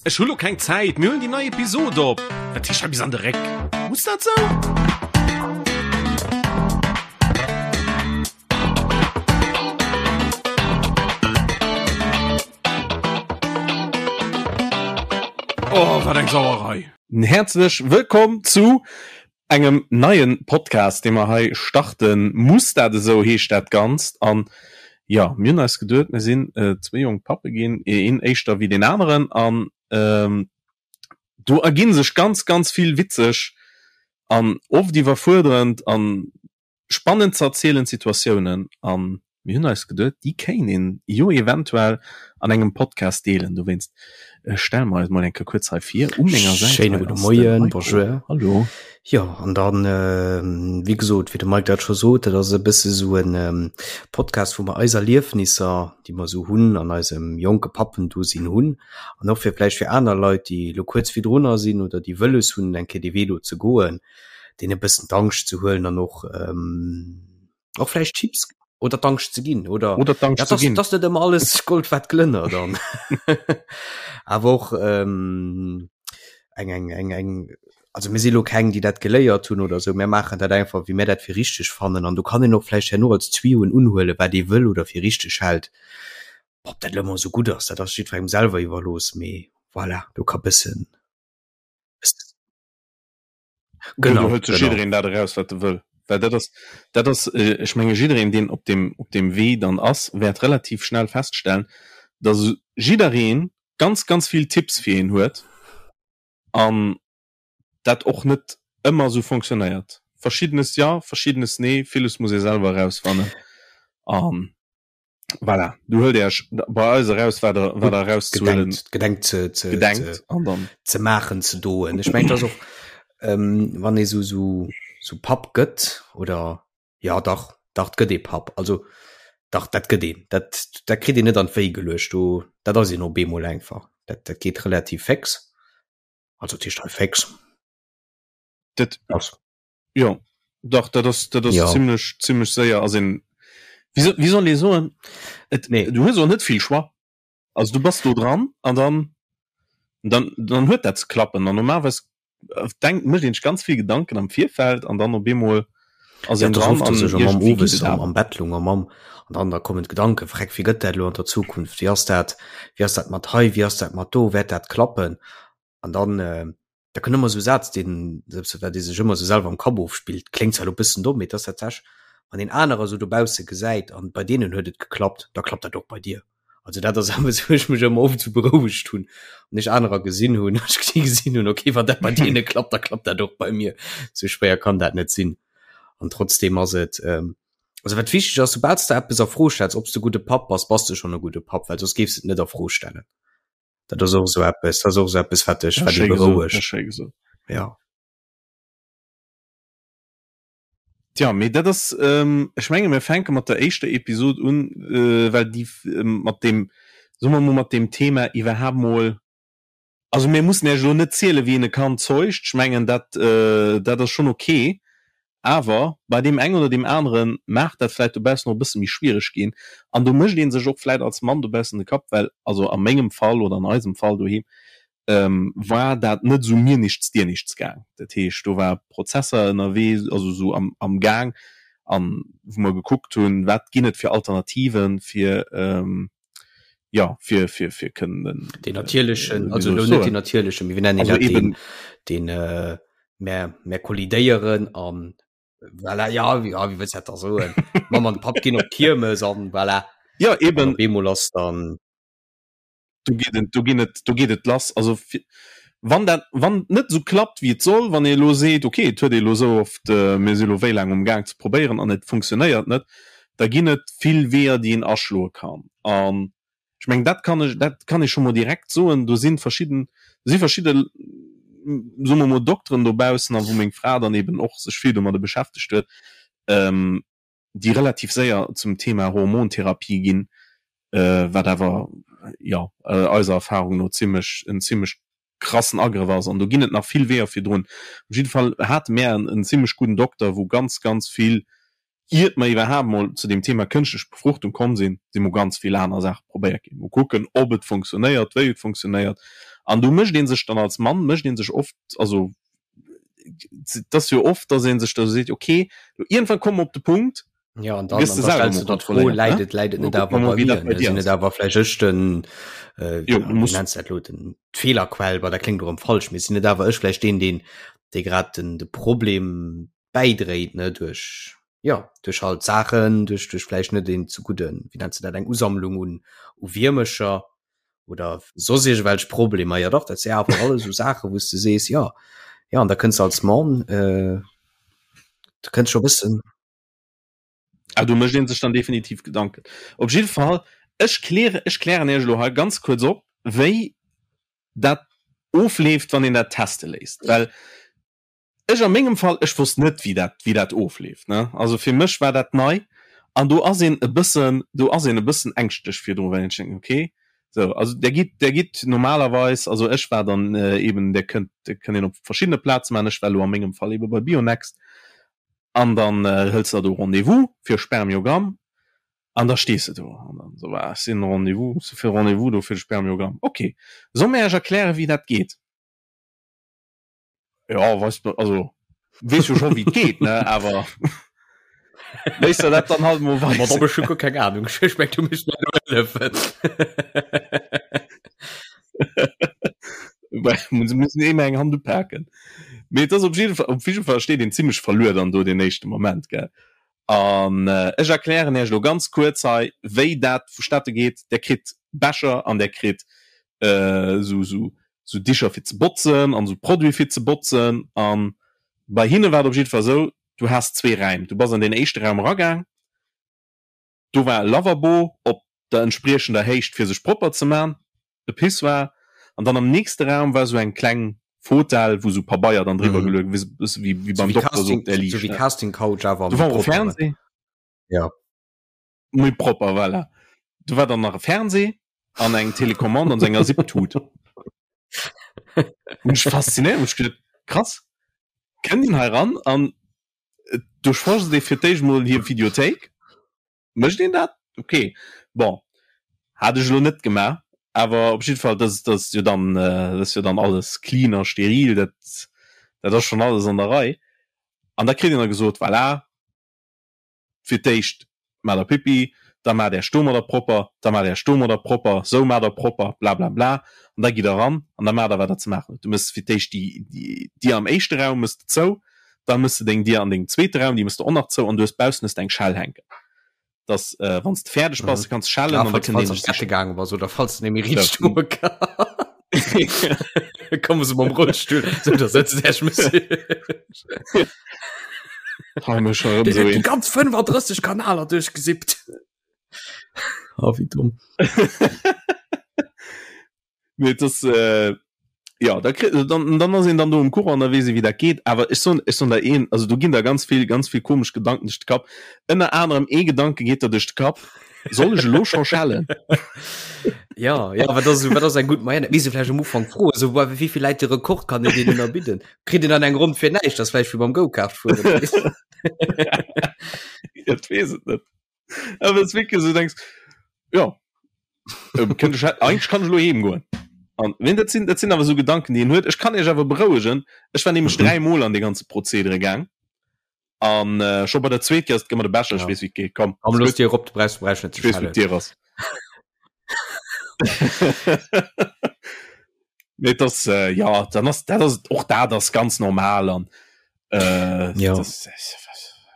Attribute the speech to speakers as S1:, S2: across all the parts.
S1: Ech hu lo keng Zäit, mir huelen déi nei Episod op. Wat heescht hei bis an de Réck? Muss dat sou? Oh, wat eng Sauerei! Häerzlech wëllkomm zu engem neien Podcast dee mer hei starten. Muss dat esou heescht dat Ganzt an jo mir hunn eis geduet mir sinn zwéi jonk Pappe ginn, een éischter wéi deen aneren an do erginn sech ganz ganz vill witzeg an oft iwwerfuerderend an Spannend ze erzielend Situatiounen an mir hunn eis geduet, déi kéint een jo eventuell an engem Podcast deelen. Dowéinst stelle mer eis mol eng Kéier kuerz hei vir. U menger Säit
S2: Schéine
S1: hei
S2: gudde
S1: ass de
S2: Moien,
S1: Heiko.
S2: bonjour.
S1: Hallo.
S2: Jo, an dann, wéi gesot, wéi de Mike dat scho sot, dat ass e bësse sou en Podcast, wou mer eis Erliefnisser, déi mer sou hunn an eisem jonke Pappendosinn hunn, an och fir vläicht fir aner Leit, déi elo kuerz virdrunner sinn oder déi wëlles hunn, eng Kéier dee Wee do ze goen, deen e bëssen d'Angscht ze huelen an och ähm, och vläicht Chips oder d'Angscht ze ginn oder
S1: oder d'Angscht
S2: ja,
S1: ze ginn.
S2: Das net ëmmer alles Gold wat glënnert dann awer och ähm, eng eng eng eng also mir si lo keng déi dat geléiert hunn oder sou mir maachen dat einfach wéi mir dat fir richteg fannen an do kann een och vläicht herno als Tuyauxen unhuelen wat ee wëll oder fir richteg hält ob dat lo ëmmer sou gutt ass dat ass jiddwerengem selwer iwwerlooss mee voilà do ka bëssen
S1: Genau, do hëlt sech jiddereen dat eraus, wat e wëll. Well dat ass, dat ass, ech menge jiddereen, deen op deem, op deem Wee dann ass, wäert relativ schnell feststellen, datt jidderee ganz, ganz vill Tipps fir een huet an dat och net ëmmer esou fonctionnéiert. Verschiddenes jo, verschiddenes nee, villes muss ee selwer erausfannen an. Voilà, du huelt Iech bei eis eraus, wat der, wat der erauszuhuelen
S2: gedenkt, gedenkt ze, ze,
S1: gedenkt
S2: ze,
S1: an dann
S2: ze maachen, ze doen. Ech mengen, dat ass och, ähm, wann ee sou, sou, sou Papp gëtt oder ja dach, dach, 't gëtt ee Papp. Also dach, dat gëtt een. Dat, dat kritt een net an d'Wéi geluecht. Do, dat ass een op eemol einfach. Dat, dat geet relativ féx. Also dat heescht hei féx.
S1: Dat
S2: Ass.
S1: Jo, dach, dat ass, dat ass
S2: Ja.
S1: zimmlech, zimmlech séier ass een, wéi so, wéi soll ee soen, et,
S2: Nee.
S1: du hues och net vill Choix. Also du bass do dran an dann, dann, dann huet dat ze klappen an normalerweis denkt, mécht een sech ganz vill Gedanken am Virfeld an dann op eemol ass
S2: Ja,
S1: een
S2: et ass
S1: dran
S2: oft,
S1: an
S2: dass ech am Mamm
S1: iergendwéi geet
S2: owes
S1: et
S2: am,
S1: awer.
S2: am Bett lung am Mamm an dann da kommen d'Gedanken, Freck, wéi gëtt dat elo an der Zukunft, wéi ass dat, wéi ass dat mat hei, wéi ass dat mat do, wäert dat klappen? An dann, äh, da kënnt ëmmer esou e Saz, deen, selbst wat ee sech ëmmer esou selwer am Kapp ofspillt, kléngt zwar elo e bëssen domm, mee et ass tatsächlech, wann een anerer esou dobausse gesäit an bei deenen huet et geklappt, da klappt dat och bei dir. Also dat ass eppes, wou ech mech ëmmer oft esou berouegt hunn, wann ech anerer gesinn hunn, ech déi gesinn hunn, okay, wann dat bei deene klappt, da klappt dat och bei mir. Esou schwéier kann dat net sinn. An trotzdem ass et, also wat wichteg ass, soubal s de eppes a Fro stells, ob s de e gudde Papp bass, bass de schonn e gudde Papp, well soss géifs de et net a Fro stellen. Dat ass och esou eppes, dat ass och esou eppes, wat dech,
S1: Dat
S2: wat
S1: ass
S2: ee
S1: schéi gesot, dat
S2: berouegt.
S1: ass schéi gesot.
S2: Ja.
S1: Tja, mee dat ass, ech menge mir fänke mat der éischter Episod un, well déi mat deem, soe mer mol, mat deem Thema iwwerhaapt mol, also mir mussen Iech elo net zielen, wéi een e Kand zeugt, ech mengen dat, dat ass schonn ok, Awer bei deem engen oder deem anere mag dat vläit dobaussen och e bësse méi schwiereg ginn. An do mécht ee sech och vläit als Mann dobaussen de Kapp, well also a mengem Fall oder an eisem Fall doheem war dat net esou mir nichts dir nichts gaang. Dat heescht, do war Prozesser ënnerwee, also esou am am Gaang, an wou mer gekuckt hunn, wat ginn et fir Alternativen, fir jo fir fir fir kënnen
S2: Den natierlechen,
S1: wéi
S2: also
S1: soll
S2: elo
S1: ech
S2: net
S1: soen?
S2: den natierlechen, mee wéi nennen
S1: Also
S2: dat
S1: eben
S2: deen, deen mär mär kollidéieren an voilà, ja, wéi ja, wéi wëlls dat da soen? D'Mamm an de Papp ginn op d'Kiermes an voilà.
S1: Ja,
S2: An
S1: eben.
S2: op eemol ass dann.
S1: Do geet et, do ginn et, do geet et lass. Also fir, wann dat, wann et net esou klappt wéi et soll, wann ee elo seet, okay, et huet ee elo esou oft, mir si elo wéi laang um Gaang ze probéieren an et funktionéiert net, da ginn et vill Weeër déi een aschloe kann. An ech mengen dat kann ech, dat kann ee scho mol direkt soen, do si verschidden, do si verschidde, soe mer mol Dokteren dobaussen, a wou meng Fra dann eben och sech vill domadde beschäftegt huet, déi relativ séier zum Thema Hormontherapie ginn, wat awer, jo, eiser Erfahrung no zimlech, en zimlech krassen Agrëff ass. An do ginn et nach vill Weeër virdrun. Op jidde Fall hate mär en zimlech gudden Dokter, wou ganz, ganz vill, iert mer iwwerhaapt mol zu deem Thema kënschtlech Befruchtung komm sinn, si mol ganz vill aner Saache probéiert ginn. Mol kucken, ob et funktionéiert, wéi et funktionéiert. An do mécht ee sech dann als Mann, mécht ee sech oft, also et ass jo oft, datt ee sech da seet, okay, lo iergendwann komme mer op de Punkt,
S2: Ja, an dann, an dann stellst du der d'Fro, läit et, läit et net awer bei mir, ne? Sinn net awer vläicht ech den, äh, jo, wéi nenns du dat elo, den, d'Feelerquell, bah, dat kléngt erëm falsch, mee sinn net awer ech vläicht deen, deen, dee grad den, de Problem bäidréit, ne, duerch, jo, duerch halt Saachen, duerch, duerch vläicht net een ze gudden, wéi nenns du dat, eng Usammlung un, u Wiermecher oder soss iergendwelch Problemer. Jo dach, dat si awer alles esou Saachen, wou s de sees, jo, jo, an da kënns de als Mann, äh, du kënns scho bëssen.
S1: Ah, do mécht een sech dann definitiv Gedanken. Op jidde Fall, ech kläre, ech klären Iech elo hei ganz kuerz op, wéi dat ofleeft, wann een dat teste léisst. Well ech a mengem Fall, ech wosst net, wéi dat, wéi dat ofleeft, ne. Also fir mech war dat nei an do ass een e bëssen, do ass een e bëssen ängschtlech virdru, well een sech denkt, okay, sou, also der gitt, der gitt normalerweis, also ech war dann eben, der kënnt, der kënnt een op verschiddene Plaze maachen, ech war elo a mengem Fall ebe bei Bionext an dann hëls de der do Rendez-vous fir e Spermiogramm an da stees de do an dann esou, ah, ech sinn Rendez-vous, ech si fir Rendez-vous do fir de Spermiogramm, okay, soll mir Iech erklären, wéi dat geet? Ja, weißt du, also wees jo schon wie geht ne awer Léisst der dat dann halt mo
S2: Ma da bist du guer keng Ahnung. Ech meng, du misst mir elo hëllefen.
S1: Well se mussen ëmmer eng Hand upaken. Mee et ass op jidde Fall, op jidde Fall steet een zimmlech verluer dann do deen éischte Moment, gell. An ech erklären Iech elo ganz kuerz hei, wéi dat vustatte geet. Der kritt Becher an der kritt esou esou esou Dicher fir ze botzen an esou Produite fir ze botzen. An bei hinne war et op jidde Fall esou, du has zwee Räim. Du bass an deen éischte Raum eragaang, do war e Lavabo op der entspriechender Héicht fir sech propper ze man, e Pissoir, an dann am nächste Raum war sou eng kleng Fotell wou sou Pabeier dann driwwer geluecht wéi bësse wéi wéi beim Dokter sou op der
S2: Liicht, ne? Casting Couch awer
S1: Do war och e Fernseh.
S2: Ja.
S1: Méi propper, voilà. Do war dann nach e Fernseh an eng Telecommande an sou enger Zip-Tut. Hunn ech faszinéiert, hunn ech geduet, krass, kënnt een hei ran an duerchforscht ee fir d'éischt mol hir Videothéik. Mécht een dat? Ok, bon, hat ech elo net gemaach, awer op jidde Fall, dat ass jo dann, dat ass jo dann alles clean a steril, dat, dat ass schonn alles an der Rei. An da kritt een da gesot, voilà, fir d'éischt maacht der Pipi, da maacht Äech domadder propper, da maacht Äech domadder propper, sou maacht der propper, blablabla, an da gitt der eran an da maacht der, wat der ze maachen hutt. Du méchs fir d'éischt déi, déi Dier am éischte Raum méchs de zou, Dann mëss de deng Dier an dengem zweete Raum, déi mëss de och nach zou an du hues baussen hues de eng Schell hänken, dass äh, wann s de fäerdeg bass, mhm. kanns schellen
S2: an da kënnt een dech sichen. Gaange bass oder falls du nemmi riicht stoe Komme se mam Rollstuhl, so da sëtzt Äch Monsieur.
S1: Hei mech schon erëm sou
S2: een. Ganz 35 Kanaler duerchgesippt.
S1: Oh, wéi domm. Nee, das, äh, ja, da kritt, dann, dann ass een dann do um Courant, da weess ee wéi dat geet. Awer ech soen, ech soen der een, also do ginn der ganz vill, ganz vill komesch Gedanken duerch de Kapp. Ënner anerem ee Gedanke geet der duerch de Kapp, Soll ech elo scho schellen?
S2: Ja, ja, wat ass, wat ass eng gutt Moyenne? Misst ee vläicht am Ufank froen, esou, wéi vill läit de Rekord, kann een deen ënnerbidden? Kritt een dann eng Ronn fir näischt? Dat ass vläicht wéi beim Go-Kart
S1: fueren. Dat weess et net. Awer es wierklech esou denkst, ja, ähm, kënnt ech eigentlech kann ech elo heem goen. An wenn dat sinn dat sinn awer esou Gedanken, déi een huet. Ech kann Iech awer berouegen, ech war nämlech mhm. dräimol an de ganze Prozedere gaang. An äh, scho bei der zweet Kéier ass et gëmmer de Becher, ech weess wéi et geet.
S2: Komm, Komm, looss dir op, du brauchst, du brauchst net
S1: ze ech weess wou d'Dier ass. Nee, das äh, ja dann ass dat ass och dat ass ganz normal an äh,
S2: ja.
S1: das,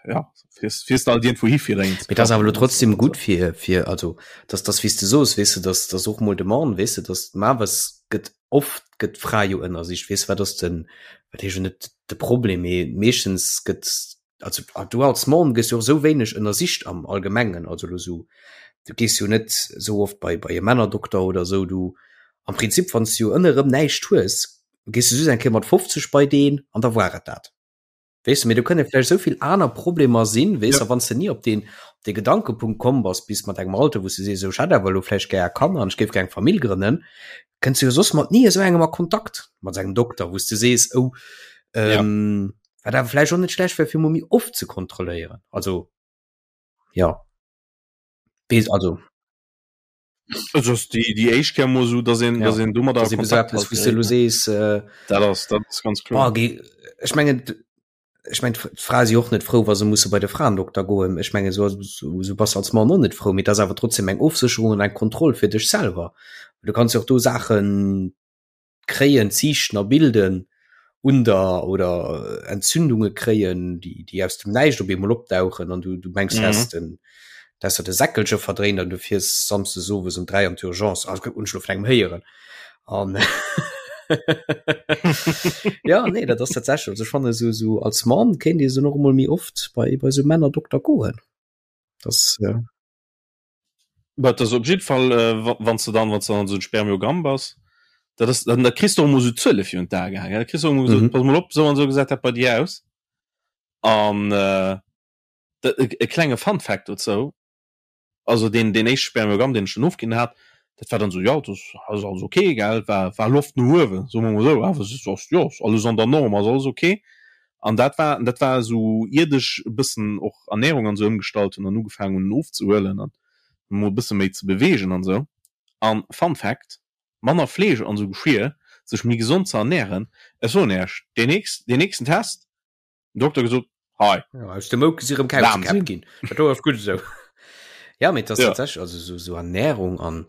S1: ja fährst, fährst halt irgendwo hi fir eng
S2: Mee das awer lo trotzdem gut fir fir also dass das wie's du soos weess du dass das och mol de Mann weess du dass ma was gëtt oft gëtt d'Fra jo ënnersicht weess wat ass den wat heescht jo net de Problem mee meeschtens gëtt also du als Mann gëss jo och sou wéineg ënnersicht am Allgemengen, also lo sou du gees jo net sou oft bei bei e Männerdokter oder sou, du am Prinzip wann s du jo ënne rëm näischt hues, gees du just eng Kéier mat 50 bei deen an da war et dat. Weess du, mee do kënne vläicht sou vill aner Problemer sinn, weess ja. a wann s du ni op deen op dee Gedankepunkt komm bass, bis mat engem Alter wou s du sees, sou ech hätt awer elo vläicht gär Kanner an ech géif gär eng Famill grënnen, kënns du jo soss mat ni esou engem a Kontakt, mat engem Dokter, wou s du sees, oh ähm, ja. Wat awer vläicht och net schlecht wär fir mol méi oft ze kontrolléieren. Also ja weess also.
S1: Also ass déi déi éischt Kéier mol esou, dass een,
S2: ja.
S1: dass een domadder
S2: a Kontakt halt wou du sees
S1: äh, dat ass dat ass ganz
S2: kloer. Oh, geh, ech mengen ech mein d'Frae si och net frou, wa se musse bei de Fraendokter goen. Ech menge so, so, so bass als Mann och net frou, mee dat ass awer trotzdem eng Ofsécherung an eng Kontroll fir dech selwer. Du kanns jo och do Saachen kréien, Ziichten a bilden un der oder Entzündunge kréien, déi, déi aus dem Näischt op eemol opdauchen an du, du mengs, mhm. häss den, dass der de Säckelche verdréint an du fiers samsdes owes um 3 an d'Urgence. Also, hunn ech lo vun engem héieren. An ja, nee, dat ass tatsächlich, also ech fanne so, so als Mann kéint ee so noch emol méi oft bei, bei so Männerdokter goen. Das,
S1: ja. Dat ass op jiddwer Fall, äh, wann s de dann, wann s de dann esou en Spermiogramm bass, dat ass, dann da kriss de och emol esou Zuele virun d'Ae gehaangen. Da kriss de och emol gesot, mhm. pass mol op, esou an esou gesäit dat bei dir aus. An äh, dat, e, e klenge Fun Fact dozou, also deen, deen éischte Spermiogramm, deen ech dann ofginn hat, dat war dann esou, jo, dat ass alles okay, gell, war, war Loft no uewen, soe mer mol esou, awer es ass, jo, ass alles an der Norm, ass alles okay. An dat war, dat war esou iert ech e bëssen och Ernährung an esou ëmgestallt hunn an ugefaangen hunn ofzehuelen an mol e bësse méi ze beweegen an esou. An Fun Fact, manner Fleesch an esou Geschir, sech méi gesond ze ernähren, ech soen Iech, deen nächst, deen nächsten Test, den Dokter gesot, hei.
S2: Ja, aus dem Mouke si rëm Kauzkäpp ginn. Dat do ass gutt esou. Ja, mee et ass tatsächlech, also esou, esou Ernährung an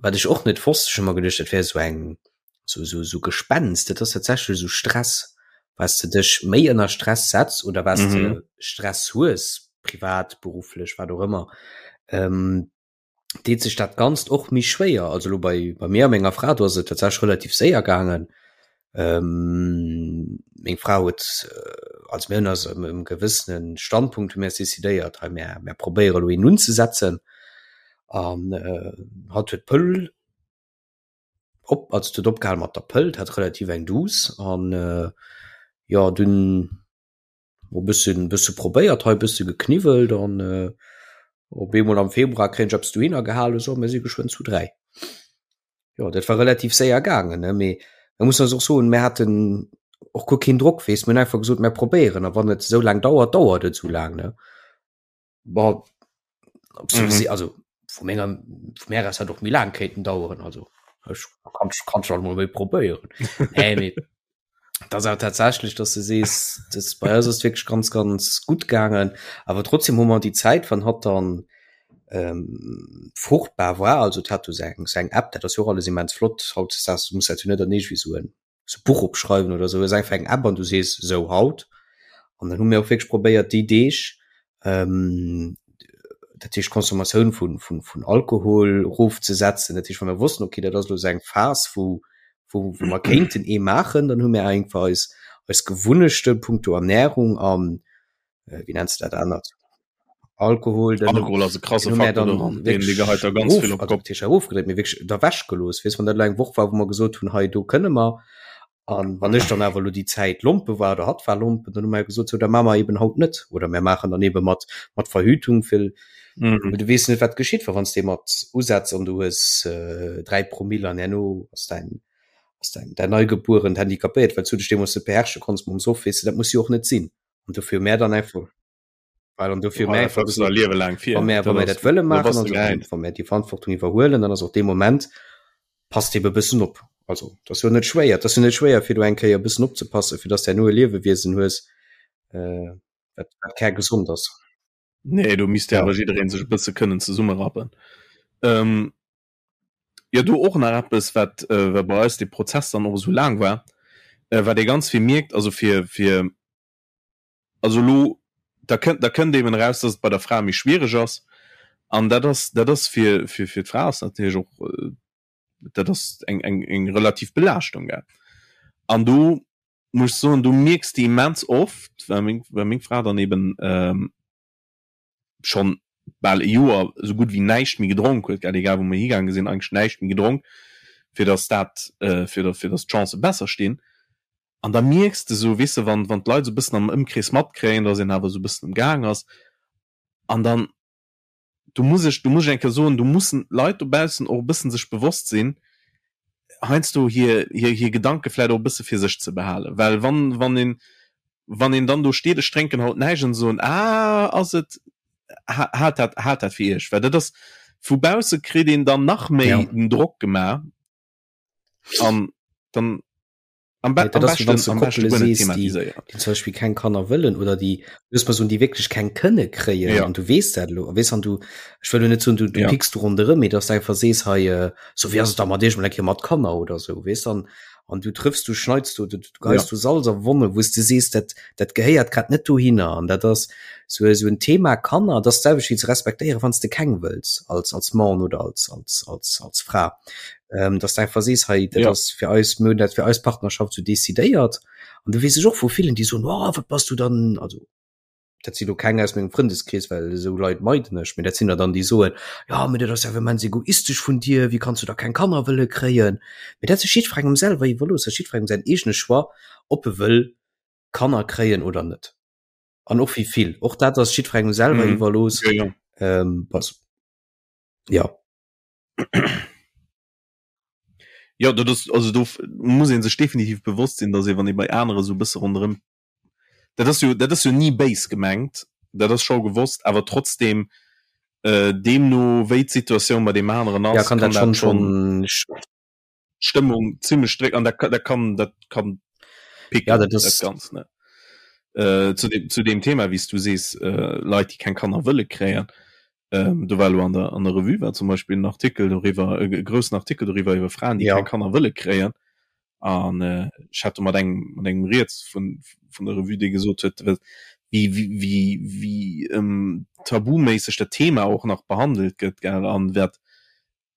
S2: Wat ech och net wosst, ech hu mer geduecht, dat wär esou eng, sou, sou, sou Gespenst, dat ass tatsächlech esou Stress, was de dech méi ënner Stress setz oder was mm -hmm. de Stress hues, privat, berufflech, wat och ëmmer, ähm, deet sech dat Ganzt och méi schwéier. Also lo bei, bei mir a menger Fra, do ass et tatsächlech relativ séier gaangen. Ähm, meng Fra huet, äh, also mir hunn eis ëm e gewëssene Standpunkt hu mir eis decidéiert, hei mir, mir probéiere lo een unzesetzen. An äh, hatt huet d'Pëll op, also huet opgehal mat der Pëll, hat relativ eng Douce an äh, jo dunn e bëssen bësse probéiert hei, bësse gekniwwelt an äh, op eemol am Februar kréien ech eppes dohinner gehalen, so mir si geschwënn zu 3. Jo dat war relativ séier gaangen ne, mee da muss man och soen, mir haten och guer keen Drock weess, mir hunn einfach gesot mir probéieren a wann et esou laang dauert, dauert et esou laang ne. Bon, ob se mhm. also vu menger vu mär ass hat och méi laang kéinten daueren also ech kann kann schon mal méi probéieren. nee, mee, das auch tatsächlich dass du sees das bei uns ist wirklich ganz ganz gut gegangen aber trotzdem hu man die Zeit wann hat dann ähm, fruchtbar war also hat du seng seng App dat das jo alles immens flott haut das muss halt net nicht wie so en so Buch opschreiwen oder sou, hues einfach eng App an du sees sou haut an dann hu mir och wierklech probéiert déi Deeg ähm, dat heescht Consommatioun vun vun vun Alkohol rofzesetzen, dat heescht wa mir wossten okay dat ass elo sou eng Phas wou wou wou mer kéinten ee maachen, dann hu mir einfach eis eis Gewunnechte punkto Ernährung an äh, wéi nenns de dat anert Alkohol
S1: den Alkohol ass e krasse Faktor doran, deen dee geheit der ganz vill op
S2: d'Kopp. Erofgedréit, mee wierklech da wech gelooss. Weess, wann dat elo eng Woch war, wou mer gesot hunn, hei do kënne mer. An wann ech dann awer elo déi Zäit Lompe war oder hatt war Lompen, dann hu mer gesot, sou da maache mer eben haut net oder mir maachen dann ebe mat mat Verhütung, well mhm. du weess net wat geschitt, well wann s de mat usetz an du hues äh, 3 Promille an herno ass dein ass dein dein Neugebuerent handicapéiert, well s du dech deemools net beherrsche konns mam Soff, weess de, dat muss jo och net sinn. An dofir hu mär dann einfach Well an dofir
S1: mär einfach gesot, Liewe laang
S2: fir. Wa mär, wa mär dat wëlle maachen, also wann mär déi Verantwortung iwwerhuelen, dann ass och dee Moment, passt ebe bëssen op. Also dat ass jo net schwéier, dat ass jo net schwéier fir do eng Kéier e bëssen opzepassen, fir dass de herno e Liewewiesen hues, äh, wat, wat kärgesond ass.
S1: Nee, do misst jo awer jidderee sech e bësse kënnen zesummerappen. Ähm, jo, do och nach eppes, wat, äh, wat bei eis dee Prozess dann och esou laang war, äh, wat ee ganz vill mierkt, also fir, fir also elo da kënnt da kënnt eben eraus, dass et bei der Fra méi schwiereg ass an dat ass dat ass fir fir fir d'Fra ass natierlech och dat ass eng eng eng relativ Belaaschtung gell. An do muss ech soen, do mierks de immens oft, well meng well meng Fra dann eben schonn bal e Joer esou gutt wéi näischt méi gedronk huet, gell, egal wou mer higaange sinn, eigentlech näischt méi gedronk, fir datt dat, fir datt fir datt d'Chancë besser stinn. An da mierks de esou, weess de, wann wann d'Leit esou e bëssen am Ëmkrees matkréien, datt een awer esou e bëssen um Gaang ass, an dann, do muss ech, do muss ech eng Kéier soen, do mussen d'Leit dobaussen och e bëssen sech bewosst sinn, heiansdo hir, hir, hir Gedanke vläicht och e bësse fir sech ze behalen. Well wann, wann een, wann een dann do steet, ech drénken haut näischt, an se soen, ah, ass et, haalt dat, haalt dat fir iech. Well dat ass. Vu bausse kritt een dann nach méi
S2: Ja.
S1: den Drock gemaach an dann am, be
S2: Nee,
S1: am
S2: dat ass, wéi wann
S1: beschten
S2: du
S1: am beschte
S2: Koppele
S1: guer net
S2: sees, déi,
S1: thematiséieren.
S2: déi zum Beispill keng Kanner wëllen oder déi, looss mer soen, déi wierklech keng kënne kréien
S1: Ja.
S2: an du weess dat elo, weess an du, ech wëll elo net soen, du, du
S1: Ja.
S2: picks do ronderëm, mee dass du einfach sees, hei, äh, so wéi ass et da mat iech mol eng Kéier mat Kanner oder sou, weess an, an du trëffs, du schneits do, du, du geheis
S1: Ja.
S2: do Salz a Wonne, wou s du sees, dat, dat gehéiert grad net dohinner an dat ass sou, sou en Thema Kanner, dat ass d'selwecht wéi ze respektéieren, wann s de keng wëlls als, als Mann oder als, als, als, als Fra. ähm, dass du einfach sees hei dat
S1: ja.
S2: ass fir eis mir hunn dat fir eis Partnerschaft so decidéiert an du weess ech och vu villen déi soen oh, wat bass du dann also dat sinn lo keng aus mengem Frëndeskrees well esou Leit meiden ech mee dat sinn der dann déi soen ja mee dat ass ja immens egoistesch vun dir wéi kanns du da keng Kanner wëlle kréien mee dat ass jiddwerengem selwer iwwerlooss dat ass jiddwerengem säin eegene Choix ob e wëll Kanner kréien oder net an och wéi vill och dat ass jiddwerengem selwer
S1: mhm.
S2: iwwerlooss
S1: ja, ja.
S2: Ähm, pass ja
S1: Ja, dat ass, also do muss ee sech definitiv bewosst sinn, datt ee wann ee bei anere sou e bësse ronderëm, dat ass jo, dat ass jo ni béis gemengt, dat ass scho gewosst, awer trotzdem deemno wéi d'Situatioun bei deem aneren
S2: ja
S1: ass,
S2: kann
S1: kann
S2: dat
S1: dat
S2: schonn
S1: schonn
S2: schonn
S1: d'Stëmmung zimlech drécken an dat dat kann dat kann
S2: ja
S1: picken
S2: dat
S1: dat
S2: ass
S1: Ganzt ne. Äh, zu dem zu deem Thema wéi s du sees, äh, Leit déi keng Kanner wëlle kréien, ähm, do war elo an der an der Revue war zum Beispill en Artikel doriwwer, e groussen Artikel doriwwer iwwer Fraen déi
S2: ja
S1: keng Kanner wëlle kréien an äh, ech hat do mat engem mat engem riets vun vun der Revue dee gesot huet, wéi wéi wéi wéi ähm, tabuméisseg dat Thema och nach behandelt gëtt gell an wat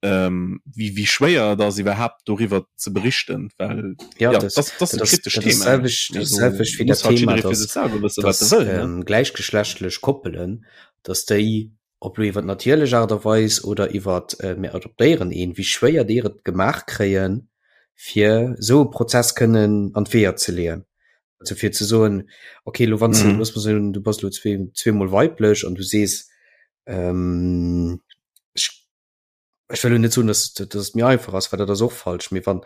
S1: ähm, wéi, wéi schwéier et ass iwwerhaapt doriwwer ze berichten, well
S2: ja,
S1: ja,
S2: das,
S1: das, das,
S2: das,
S1: e kritescht
S2: das,
S1: Thema.
S2: Selwecht, das selwecht wéi dat
S1: halt
S2: Thema,
S1: fir
S2: dass,
S1: sech selwer wësse wat
S2: dass
S1: e wëll. Ne?
S2: ähm, gläichgeschlechtlech Koppelen, dass déi, ob lo iwwer natierlech Aart a Weis oder iwwer äh, mir adoptéieren een, wéi schwéier déi et gemaach kréien, fir esou e Prozess kënnen an d'Weeër ze leeën. Also fir ze soen, okay, lo wann mm. looss mer soen, du bass lo zwee, zweemol weiblech an du sees, ähm, ech ech wëll lo net soen, dass, dass et méi einfach ass, well dat ass och falsch, mee wann,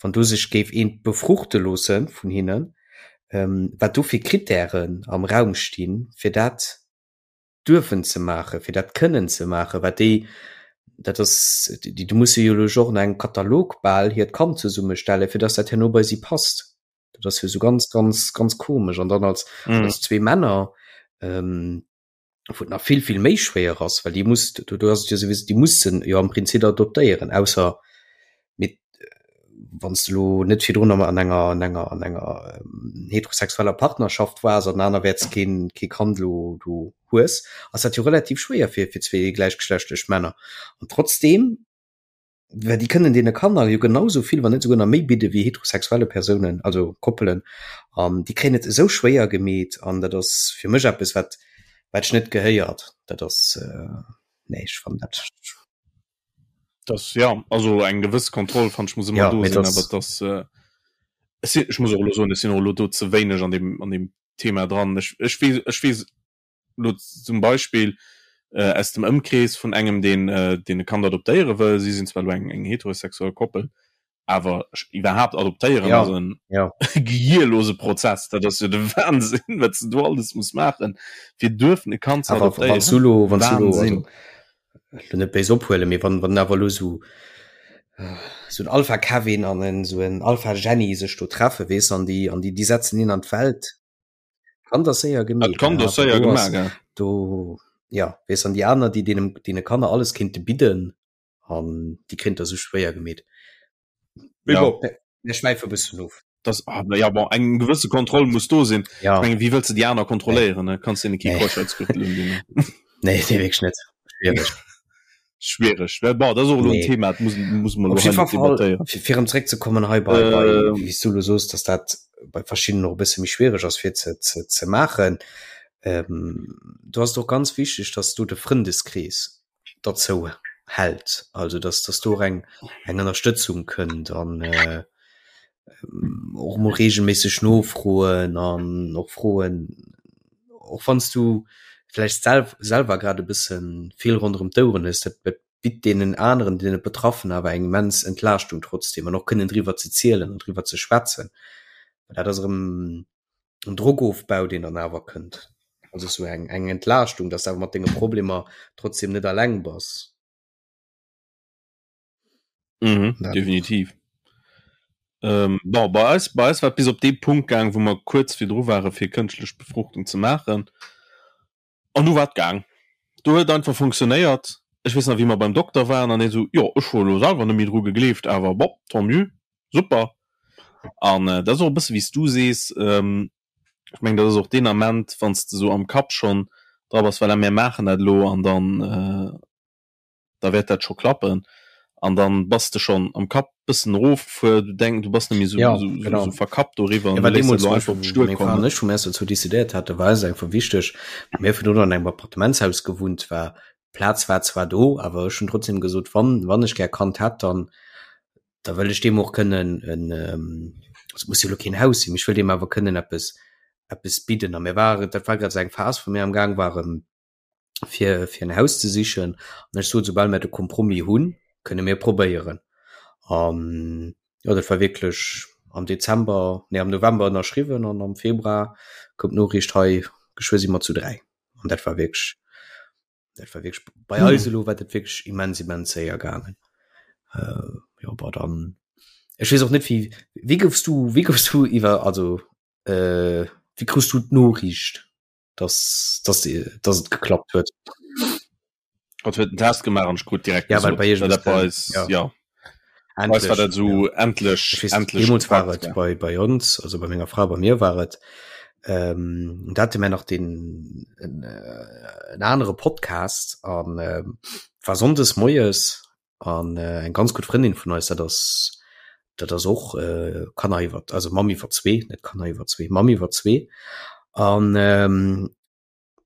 S2: wann do sech géif eent befruchte loosse vun hinnen, ähm, wat do fir Kritären am Raum stinn, fir dat duerfen ze maachen, fir dat kënnen ze maachen, wat déi, dat ass, déi, do musse jo elo och no engem Katalog bal hiert Kand zesummestellen, fir dass dat herno bei si passt. Dat ass jo esou ganz, ganz, ganz komesch. An dann als,
S1: Mhm.
S2: als zwee Männer, ähm, wou et nach vill vill méi schwéier ass, well déi muss do do ass et jo souwisou déi mussen jo am Prinzip adoptéieren, ausser mit wann s de lo net virdrun an enger an enger an enger heterosexueller Partnerschaft waars an anerwäerts keen kee Kand lo do hues, ass dat jo relativ schwéier fir fir zwee gläichgeschlechtlech Männer. An trotzdeem Well déi kënnen deene Kanner jo genau sou vill, wann net souguer nach méi bidde wéi heterosexuelle Persounen, also Koppelen. An déi kréien et esou schwéier gemeet an dat ass fir mech eppes, wat wat ech net gehéiert. Dat ass, nee, ech fannen dat.
S1: Das, ja, also eng gewëss Kontroll fannen ech muss ëmmer
S2: Ja,
S1: do
S2: mee
S1: sinn,
S2: dat
S1: awer dass, ech sinn, ech muss och elo soen, ech sinn och elo do ze wéineg an deem an deem Thema dran. Ech ech weess ech weess Lo zum Beispill aus dem Ëmkrees vun engem, deen deen e Kand adoptéiere wëll. Si sinn zwar elo eng eng heterosexuell Koppel, awer iwwerhaapt adoptéieren
S2: Ja,
S1: ass en
S2: ja.
S1: gehierlose Prozess. Dat ass jo de Wahnsinn, wat s de do alles muss maachen, fir duerfen e Kand ze
S2: Awer wann s du
S1: adoptéieren.
S2: lo, wann s du lo, also
S1: Wahnsinn!
S2: lo net béis ophuelen, mee wann wann awer lo sou sou en Alpha Kevin an en sou en Alpha Jenny sech do treffe, weess, an déi an déi déi setzen een an d'Welt, Kand ass séier
S1: Dat
S2: gemeet,
S1: Kand
S2: ja,
S1: ass séier
S2: do ass
S1: gemaach, ja.
S2: do ja weess an déi aner déi deenen deene Kanner alles kéinte bidden an déi kréint der sou schwéier gemeet. Mee
S1: Ja.
S2: bon, mir schwäife bëssen of.
S1: Das, ah, ja bon, eng gewësse Kontroll muss do sinn.
S2: Ja.
S1: Ech mengen, wéi wëlls de déi aner
S2: Nee.
S1: kontrolléieren, ne? Kanns deene kee
S2: Nee.
S1: Keuschheitsgürtel undinn, ne?
S2: Nee, nee, wierklech net. Schwiereg.
S1: Schwiereg. Well bon, dat ass och elo en
S2: Nee.
S1: Thema, dat muss, muss mer
S2: Op
S1: elo hei
S2: jiddwer
S1: net
S2: Fall,
S1: debattéieren.
S2: fir, fir erëm zréckzekommen hei bei, bei
S1: Ähm.
S2: wéi s du elo soos, dass dat bei verschiddenen och e bësse méi schwiereg ass fir ze, ze, ze maachen. Ähm, do ass et och ganz wichteg, dass do de Frëndeskrees derzou hält, also dass, dass do och eng, eng Ënnerstëtzung kënnt an äh, och mol regelméisseg nofroen an och froen, och wann s du vläicht sel selwer grad e bësse vill ronderëm d'Oueren hues, dat dat bitt deenen aneren, deene Betraffenen awer eng immens Entlaaschtung trotzdeem an och kënnen driwwer ze zielen an driwwer ze schwätzen. Well dat ass erëm en Drockofbau, deen dann awer kënnt. Also sou eng eng Entlaaschtung, dass de awer mat denge Problemer trotzdeem net alleng bass.
S1: Mhm, ja. Definitiv. Ähm, bon, bei eis, bei eis war bis op dee Punkt gaang, wou mer kuerz virdru ware fir kënschtlech Befruchtung ze maachen. An du war et gaang. Do huet einfach funktionéiert. Ech weess nach wéi mer beim Dokter waren an hie sou, jo ech hu elo selwer net méi dru gegleeft, awer bon, tant mieux, super. An äh, dat ass och e bësse wéi s du sees, ähm, ech meng dat ass och deen Ament, wann s de sou am Kapp schonn dra bass, voilà mir maachen dat elo an dann äh, da wäert dat scho klappen an dann bass de schonn am Kapp bëssen erofgefuer, du denk du bass net méi sou,
S2: ja,
S1: sou,
S2: genau.
S1: sou verkappt doriwwer
S2: ja,
S1: an du léiss dat
S2: elo
S1: elo einfach op d'Stuer
S2: meng Fra an
S1: kommen.
S2: ech, wou mir eis dozou decidéiert haten, war eis einfach wichteg, mir hu virdrun an engem Appartementshaus gewunnt, war d'Plaz war zwar do, awer ech hunn trotzdem gesot, wann, wann ech gär Kand hätt, dann da wëll ech deem och kënnen en, also muss jo elo keen Haus sinn, mee ech wëll deem awer kënnen eppes, eppes bidden. A mir ware, dat war grad esou eng Phas, wou mir am Gaang waren, fir fir en Haus ze sichen an ech sot soubal mir de Kompromis hunn, kënne mir probéieren. An jo dat war wierklech am Dezember, nee am November ënnerschriwwen an am Februar koum d'Noriicht hei geschwë si mer zu 3 an dat war wierklech dat war wierklech bei eis elo war dat wierklech immens immens séier gaangen. Äh, jo bon dann ech weess och net wéi wéi goufs du wéi goufs du iwwer also äh, wéi krus du d'Noriicht? dass, dass, dass et geklappt huet.
S1: Gott huet den Test gemaach an ech krut direkt
S2: ja, well bei
S1: iech dat bei eis, ja. ja.
S2: Endlech,
S1: war dat so
S2: ja.
S1: endlech,
S2: wees,
S1: endlech
S2: deemools war
S1: gepackt,
S2: et
S1: ja.
S2: bei, bei ons, also bei menger Fra, bei mir war et, ähm, da hatte mir nach den en, äh, en anere Podcast an ähm, war sonndes moies an äh, eng ganz gutt Frëndin vun eis, dat ass dat ass och äh, Kanner iwwer also Mamm iwwer zwee, net Kanner iwwer zwee, Mamm iwwer zwee an ähm,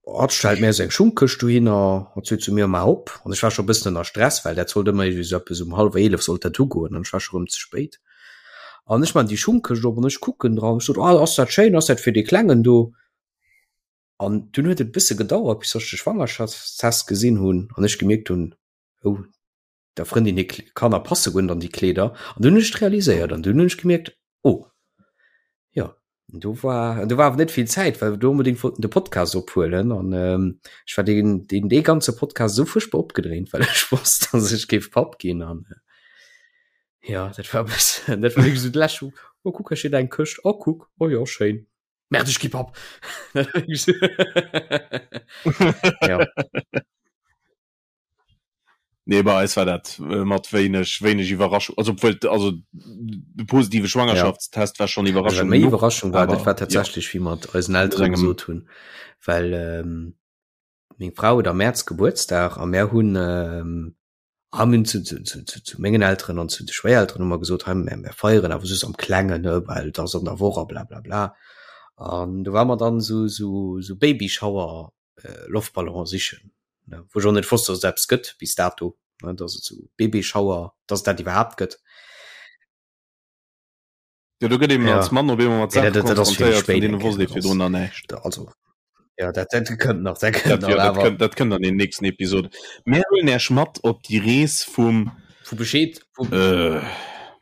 S2: hat stellt mir seng Schungkëscht dohinner, hat sot zu mir ma op an ech war scho bëssen ënner Stress, well dat sollt ëmmer iergendwéi sou eppes um hallwer 11 sollt dat ugoen an ech war scho rëm ze spéit. An ech man déi Schungkëscht op an ech kucken dran, ech sot, ah ass dat schéin, ass dat fir dee Klengen do? An dunn huet et e bësse gedauert, bis ech de Schwangerschaftstest gesinn hunn an ech gemierkt hunn, oh der Frëndin hir Kanner passe guer net an déi Kleeder an dunn hunn ech et realiséiert an dunn hunn ech gemierkt oh jo an do war an do war awer net vill Zäit well wir do onbedéngt wollten de Podcast ophuelen an ähm, ech war deen deen dee ganze Podcast esou fuerchtbar opgedréint well ech wosst dass ech géif Papp ginn an äh, ja dat war e bëssen dat war wierklech esou d'lescht oh kuck hei steet eng Këscht oh kuck oh jo schéin Merde ech gi Papp ja.
S1: Nee bei eis war dat äh, mat wéineg wéineg Iwwerraschung also obwuel also de positive Schwangerschaftstest ja. war schon
S2: Iwwerraschung méi Iwwerraschung war dat war tatsächlich ja. wie mat eisen Elteren gesot hunn well ähm, meng Frau huet am März Gebuertsdag a mär hunn ähm, haben zu, zu, zu, zu, zu mengen Elteren an zu de Schwéierelteren hu mer gesot hei mär, mär feieren awer just am Klengen ne well et ass an der Woch a bla bla bla an do war mer dann so so so Babyschauer äh, Loftballon sichen, ne, wou ech och net wosst, dass et eppes gëtt bis dato, ne, dass et sou Babyschauer, dass et dat iwwerhaapt gëtt.
S1: Ja, do gëtt eben
S2: Ja.
S1: als Mann op eemol mat
S2: Ja,
S1: Saache
S2: dat, dat ass fir
S1: konfrontéiert, vun
S2: spéit
S1: deene
S2: eng
S1: wosst
S2: Kéier,
S1: ee
S2: dat
S1: virdrun
S2: ass,
S1: nach näischt.
S2: da, also, ja, dat, dat kënnt nach, dat kënnt
S1: Dat,
S2: nach,
S1: ja, dat
S2: awer
S1: kënnt, dat kënnt an den nächsten Episode. Mir huelen Äech mat op déi Rees vum,
S2: vu Bescheed, vu,
S1: äh,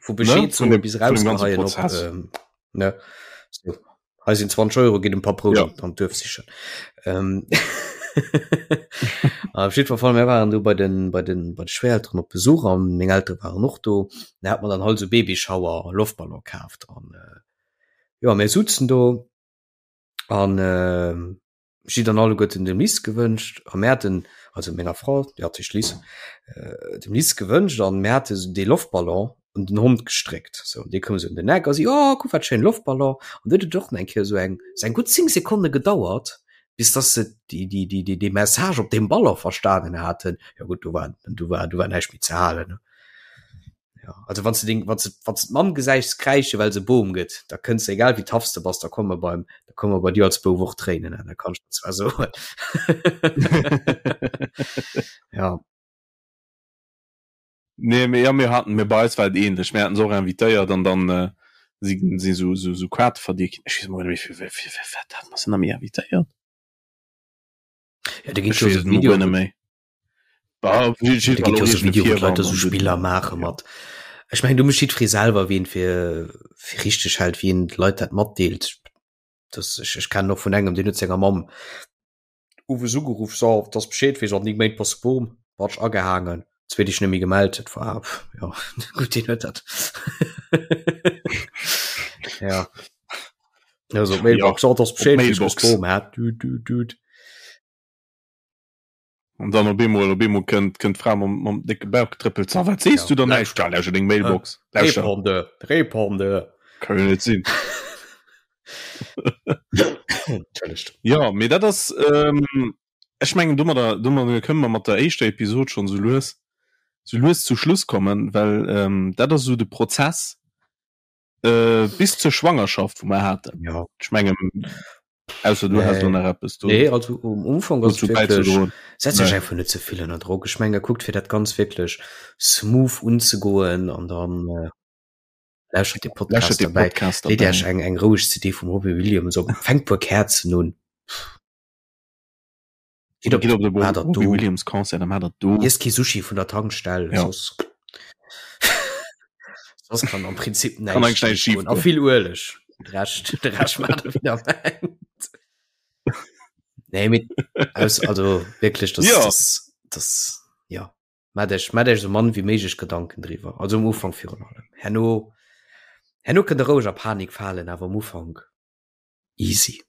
S2: vu
S1: ne,
S2: Bescheed
S1: vun
S2: soe
S1: dem,
S2: bis
S1: vun dem ganze
S2: rausgeheien op,
S1: Prozess.
S2: ähm, ne, so. Hei sinn 20 Euro, gitt en paar Brout
S1: Ja.
S2: an, an d'Duerf sichen. Ähm, op jiddwer Fall, mir waren do bei den, bei den, bei de Schwéierelteren op Besuch an meng Eltere waren och do. Da hat mer dann halt esou Babyschauer Loftballon kaaft an äh, jo, mir sutzen do an äh, Ech si dann alleguerten dem Liz gewënscht a mir haten, also menger Fra, déi hat heescht Liz, dem Liz gewënscht an mir hate sou dee Loftballon un den Hond gestréckt. Sou, an dee koum sou un den Eck a si, oh kuck wat schéin Loftballon. An du huet et och nach eng Kéier sou eng, sou eng gutt 10 Sekonne gedauert, bis dass se déi, déi, déi, déi, dee Message op deem Ballon verstanen haten. Jo gutt, do war, do war, do war näischt méi ze halen, ne. Ja, also wann du deng, wann du, wann du d'Mamm gesäichs kräische well se Boom gëtt, da kënns du, egal wéi tough s de bass, da komme beim, da komme bei dir als Bouf och Tréinen, da kann ech der zwar soen. Ja.
S1: Nee, mir, ja, mir haten, mir bei eis war et ähnlech. Mir haten se och invitéiert an dann äh, si si so, so, so Quarte verdeelt ginn. Ech weess mol net méi, fir, fir, fir, fir wat hat mer se nach méi invitéiert?
S2: Ja, da ginn
S1: Ech
S2: jo
S1: weess
S2: so
S1: et mol
S2: Videoen,
S1: guer net méi.
S2: Da ginn jo so Video, wou d'Leit da so Spiller maache mat. Ech mengen, do mécht jiddweree selwer, wien fir fir richteg hält, wien d'Leit dat matdeelt. Das, ech, ech kennen och vun engem, deen huet senger Mamm owes ugeruff, so, dass Bescheed weess, an 9 Méint bass de Bom, batsch agehaangen. Zweet Deeg net méi gemellt, dat war ja gutt, deen huet dat. Ja. Also Mailbox, ja, oh,
S1: Bescheed, Mailbox. Hat. Du, du, du. An dann op eemol op eemol kënnt kënnt d'Fra mam mam décke Bauch getrëppelt. Sa wat sees ja. du dann näischt? Ja, lauschter deng Mailbox.
S2: Lauschter. Répondeur, Répondeur.
S1: Kann jo net sinn.
S2: Entschëllegt.
S1: Ja, mee dat ass ähm, ech mengen domadder domadder kënne mer mat der éischter Episod schonn sou lues sou lues zu Schluss kommen, well ähm, dat ass sou de Prozess äh, bis zur Schwangerschaft, wou mer haten.
S2: Ja.
S1: Ech mengen ausser du has do nach eppes
S2: do. Nee, also um Umfang ass wirklich, setz dech einfach net ze vill ënner Drock. Ech menge kuckt fir dat ganz wierklech smooth unzegoen an dann äh, lauschtert de Podcast
S1: dabei. Podcast
S2: dabei. Leet Iech eng eng roueg CD vum Robbie Williams op, fänkt puer Käerzen un.
S1: Gitt op, Gitt op de Robbie Williams Concert, dann hat dat do.
S2: Iesst kee Sushi vun der Tankstell, ja. soss soss kann am Prinzip
S1: näischt schief
S2: goen. A vill Ueleg. De Rescht, de Rescht maacht der wéi der mengt. Nee, mee aus, also wierklech, das,
S1: ja.
S2: das, das, ja. Maacht Iech, maacht Iech esou mann wéi méiglech Gedanken driwwer. Also um Ufank virun allem. Herno, herno kënnt der roueg a Panik falen, awer um Ufank easy.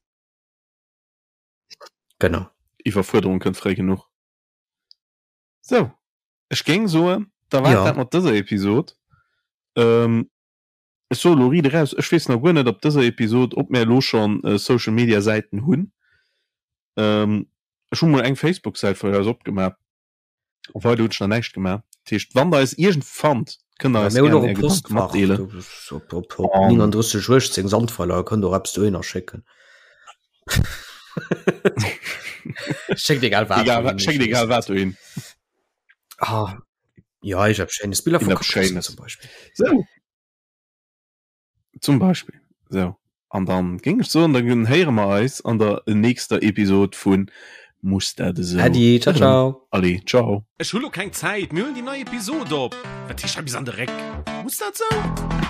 S2: Genau.
S1: Iwwerfuerderung kënnt fréi genuch. Sou, ech géing soen, da war et dat mat dëser Episod. Ech soe lo riit eraus, ech weess nach guer net op dëser Episod, ob mär elo schonn Social Media Säiten hunn. Ech hu mol eng Facebook Säit vun eis opgemaach. A weider hunn ech nach näischt gemaach. Dat heescht, wann der eis iergendwou fannt, kënnt der
S2: eis
S1: gären
S2: är Gedanke matdeelen. Op, op, op 39 18 Sandweiler, kënnt och eppes dohinner schécken. Schéckt egal wat.
S1: Egal, schéckt egal wat dohin.
S2: Ah, ja, ech hab schéines Biller
S1: vu
S2: Schéines zum Beispill.
S1: So. Zum Beispill. Sou, an dann géing ech soen, dann héiere mer eis an der nächster Episod vun Muss dat esou?
S2: Äddi, ciao ciao.
S1: Allez, ciao. Ech hu lo keng Zäit, mir huelen déi nei Episod op. Wat heescht hei bis an de Réck? Muss dat sou?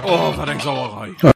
S1: Oh, wat eng Sauerei!